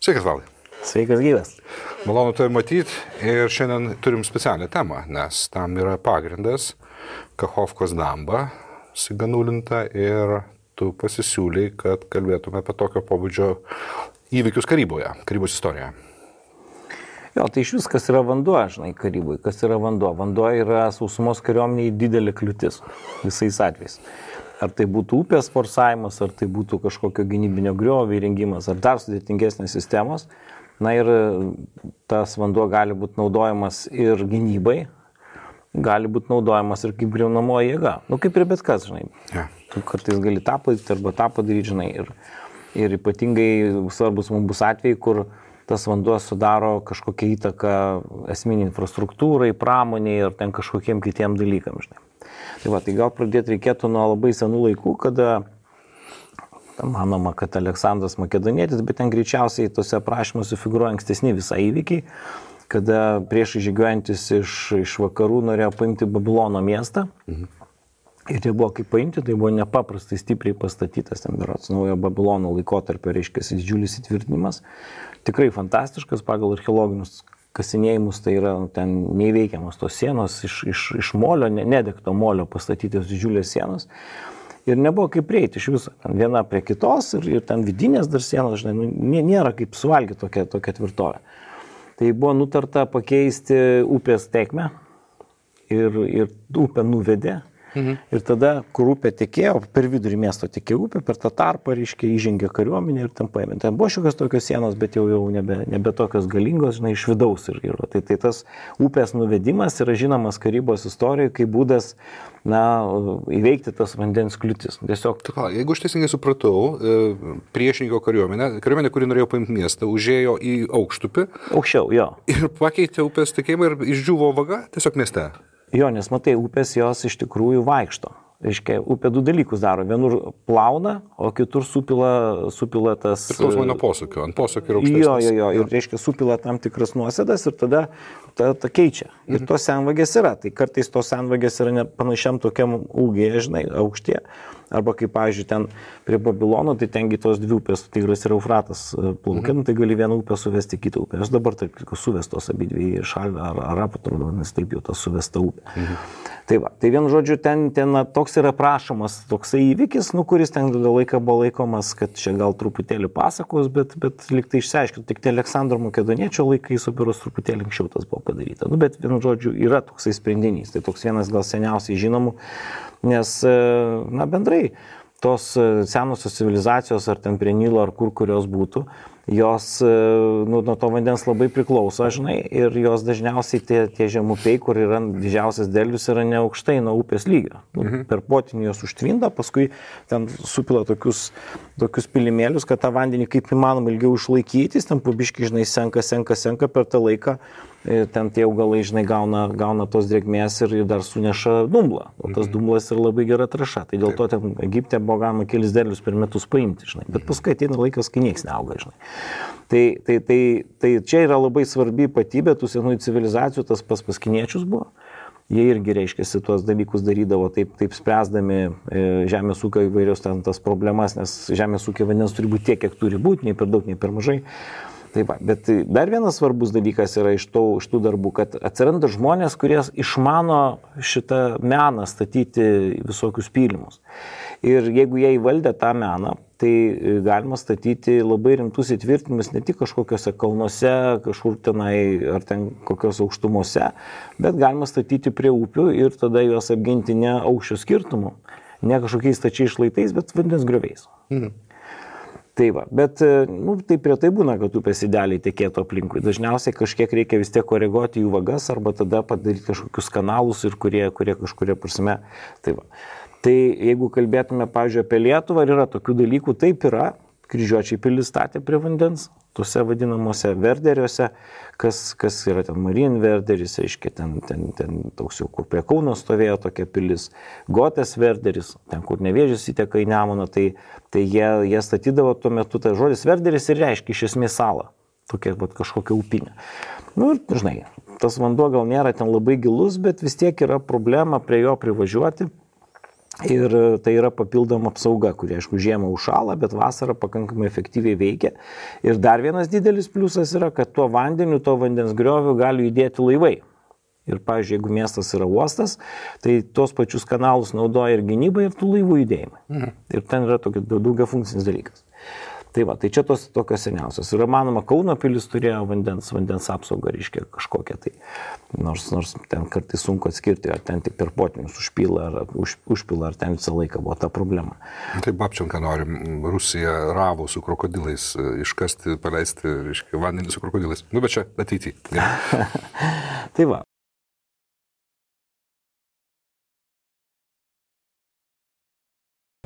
Sveikas, Valdai. Sveikas gyvas. Malonu tai matyti ir šiandien turim specialią temą, nes tam yra pagrindas Kachovkos damba, siganulinta ir tu pasisiūlei, kad kalbėtume apie tokio pobūdžio įvykius Karyboje, Karybos istorijoje. Jo, tai iš vis, kas yra vanduo, žinai, Karybui, kas yra vanduo. Vanduo yra sausumos kariuomeniai didelė kliūtis visais atvejais. Ar tai būtų upės forsavimas, ar tai būtų kažkokio gynybinio griovio įrengimas, ar dar sudėtingesnės sistemos. Na ir tas vanduo gali būti naudojamas ir gynybai, gali būti naudojamas ir kaip griaunamoji jėga. Nu, kaip ir bet kas, žinai. Ja. Tu kartais gali tą padaryti arba tą padaryti, žinai. Ir ypatingai svarbus mums bus atvejai, kur tas vanduo sudaro kažkokią įtaką esminį infrastruktūrai, pramoniai ir ten kažkokiem kitiem dalykam, žinai. Tai gal pradėti reikėtų nuo labai senų laikų, kada manoma, kad Aleksandras Makedonietis, bet ten greičiausiai tose aprašymuose figūruoja ankstesni visai įvykiai, kada prieš žygiuojantis iš vakarų norėjo paimti Babilono miestą. Ir tai buvo kaip paimti, tai buvo nepaprastai stipriai pastatytas, ten berods naujo Babilono laikotarpio, reiškia, didžiulis įtvirtinimas. Tikrai fantastiškas pagal archeologinius kasinėjimus, tai yra ten neįveikiamas tos sienos iš molio, nedegto molio pastatytos didžiulės sienos. Ir nebuvo kaip prieiti iš viso, ten viena prie kitos ir ten vidinės dar sienos, žinai, nėra kaip suvalgyti tokia tvirtovė. Tai buvo nutarta pakeisti upės tėkmę ir upę nuvedė. Ir tada, kur upė tekėjo, per vidurį miesto tekėjo upė, per tą tarpą, reiškia, įžengė kariuomenė ir ten paėmė. Ten buvo šiokios tokios sienos, bet jau nebe tokios galingos, žinai, iš vidaus. Tai tas upės nuvedimas yra žinomas Karybos istorijoje kaip būdas, įveikti tas vandens kliūtis. Tiesiog... Jeigu aš teisingai supratau, priešininko kariuomenė, kuri norėjo paimti miestą, užėjo į aukštupį. Aukščiau, jo. Ir pakeitė upės tekėjimą ir išdžiuvo vaga tiesiog mieste. Jo, nes matai, upės jos iš tikrųjų vaikšto. Reiškia, upė du dalykus daro. Vienur plauna, o kitur supila tas... Priklausomai nuo posūkio. Ant posūkio yra aukštesnis. Jo. Ir reiškia, supila tam tikras nuosėdas ir tada ta keičia. Ir tos senvagės yra. Tai kartais tos senvagės yra panašiam tokiam ūgėje, žinai, aukštie. Arba kaip, pavyzdžiui, ten prie Babilono, tai tengi tos dvi upės, Tigras ir Eufratas plaukia, tai gali vieną upę suvesti kitą upę. Aš dabar tai suvestos abidvi šalį ar apatrodo, nes taip jau tas suvesta upė. Tai vienu žodžiu, ten toks yra prašomas toksai įvykis, kuris ten laiką buvo laikomas, kad čia gal truputėlį pasakos, bet lyg tai išsiaiškinti, tik Aleksandro Makedoniečio laikais operos truputėlį anksčiau tas buvo padaryta. Bet vienu žodžiu, yra toksai sprendinys, tai toks vienas gal seniausiai žinomų, nes, bendrai, tos senosios civilizacijos, ar ten prie Nilo, ar kurios būtų, jos nuo to vandens labai priklauso, žinai, ir jos dažniausiai tie žemupiai, kur yra didžiausias derlius, yra neaukštai nuo upės lygio. Per potynį jos užtvinda, paskui ten supila tokius pilimėlius, kad tą vandenį kaip įmanoma ilgiau išlaikytis, ten pabiškai, žinai, senka per tą laiką. Ten tie augalai, žinai, gauna tos drėgmės ir dar suneša dumblą. O tas dumblas yra labai gera trąša. Tai dėl to ten Egipte buvo galima kelis derlius per metus paimti, žinai. Bet paskui ateina laikas, kai nieks neauga, žinai. Tai čia yra labai svarbi ypatybė tų senųjų civilizacijų, tas paskiniečius buvo. Jie irgi, reiškia, tuos dalykus darydavo taip spręsdami žemės ūkio įvairios ten tas problemas, nes žemės ūkio vandens turi būti tiek, kiek turi būti, nei per daug, nei per mažai. Bet dar vienas svarbus dalykas yra iš tų darbų, kad atsiranda žmonės, kurie išmano šitą meną statyti visokius pylimus. Ir jeigu jie įvaldė tą meną, tai galima statyti labai rimtus įtvirtinimus ne tik kažkokiuose kalnuose, kažkur tenai ar ten kokios aukštumose, bet galima statyti prie upių ir tada juos apginti ne aukščio skirtumu, ne kažkokiais stačiais šlaitais, bet vandens grioviais. Bet tai prie tai būna, kad upės idealiai tekėtų aplinkui. Dažniausiai kažkiek reikia vis tiek koreguoti jų vagas arba tada padaryti kažkokius kanalus ir kurie kažkuria prasme. Tai jeigu kalbėtume, pavyzdžiui, apie Lietuvą, yra tokių dalykų, taip yra. Kryžiuočiai pilis statė prie vandens, tuose vadinamuose verderiuose, kas yra ten Marin verderis, reiškia, ten toks jau, kur prie Kauno stovėjo tokia pilis, Gotės verderis, ten kur Nevėžis įteka į Nemuną, tai jie statydavo tuo metu, tai žodis verderis ir reiškia iš esmės salą, tokia kažkokia upinė. Ir, žinai, tas vanduo gal nėra ten labai gilus, bet vis tiek yra problema prie jo privažiuoti. Ir tai yra papildoma apsauga, kuri, aišku, žiemą užšąla, bet vasarą pakankamai efektyviai veikia. Ir dar vienas didelis pliusas yra, kad tuo vandeniu, to vandens grioviu gali judėti laivai. Ir, pavyzdžiui, jeigu miestas yra uostas, tai tos pačius kanalus naudoja ir gynybai, ir tų laivų judėjimai. Ir ten yra tokia daugiafunkcinis dalykas. Tai va, tai čia tos tokios seniausios. Ir manoma, Kauno pilis turėjo vandens apsaugą, reiškia kažkokią tai. Nors ten kartais sunku atskirti, ar ten tik per potvinius užpila, ar ten visą laiką buvo ta problema. Tai Babčenka nori Rusiją ravų su krokodilais iškasti, paleisti, reiškia, vandenį su krokodilais. Nu, bet čia ateityje. Tai va,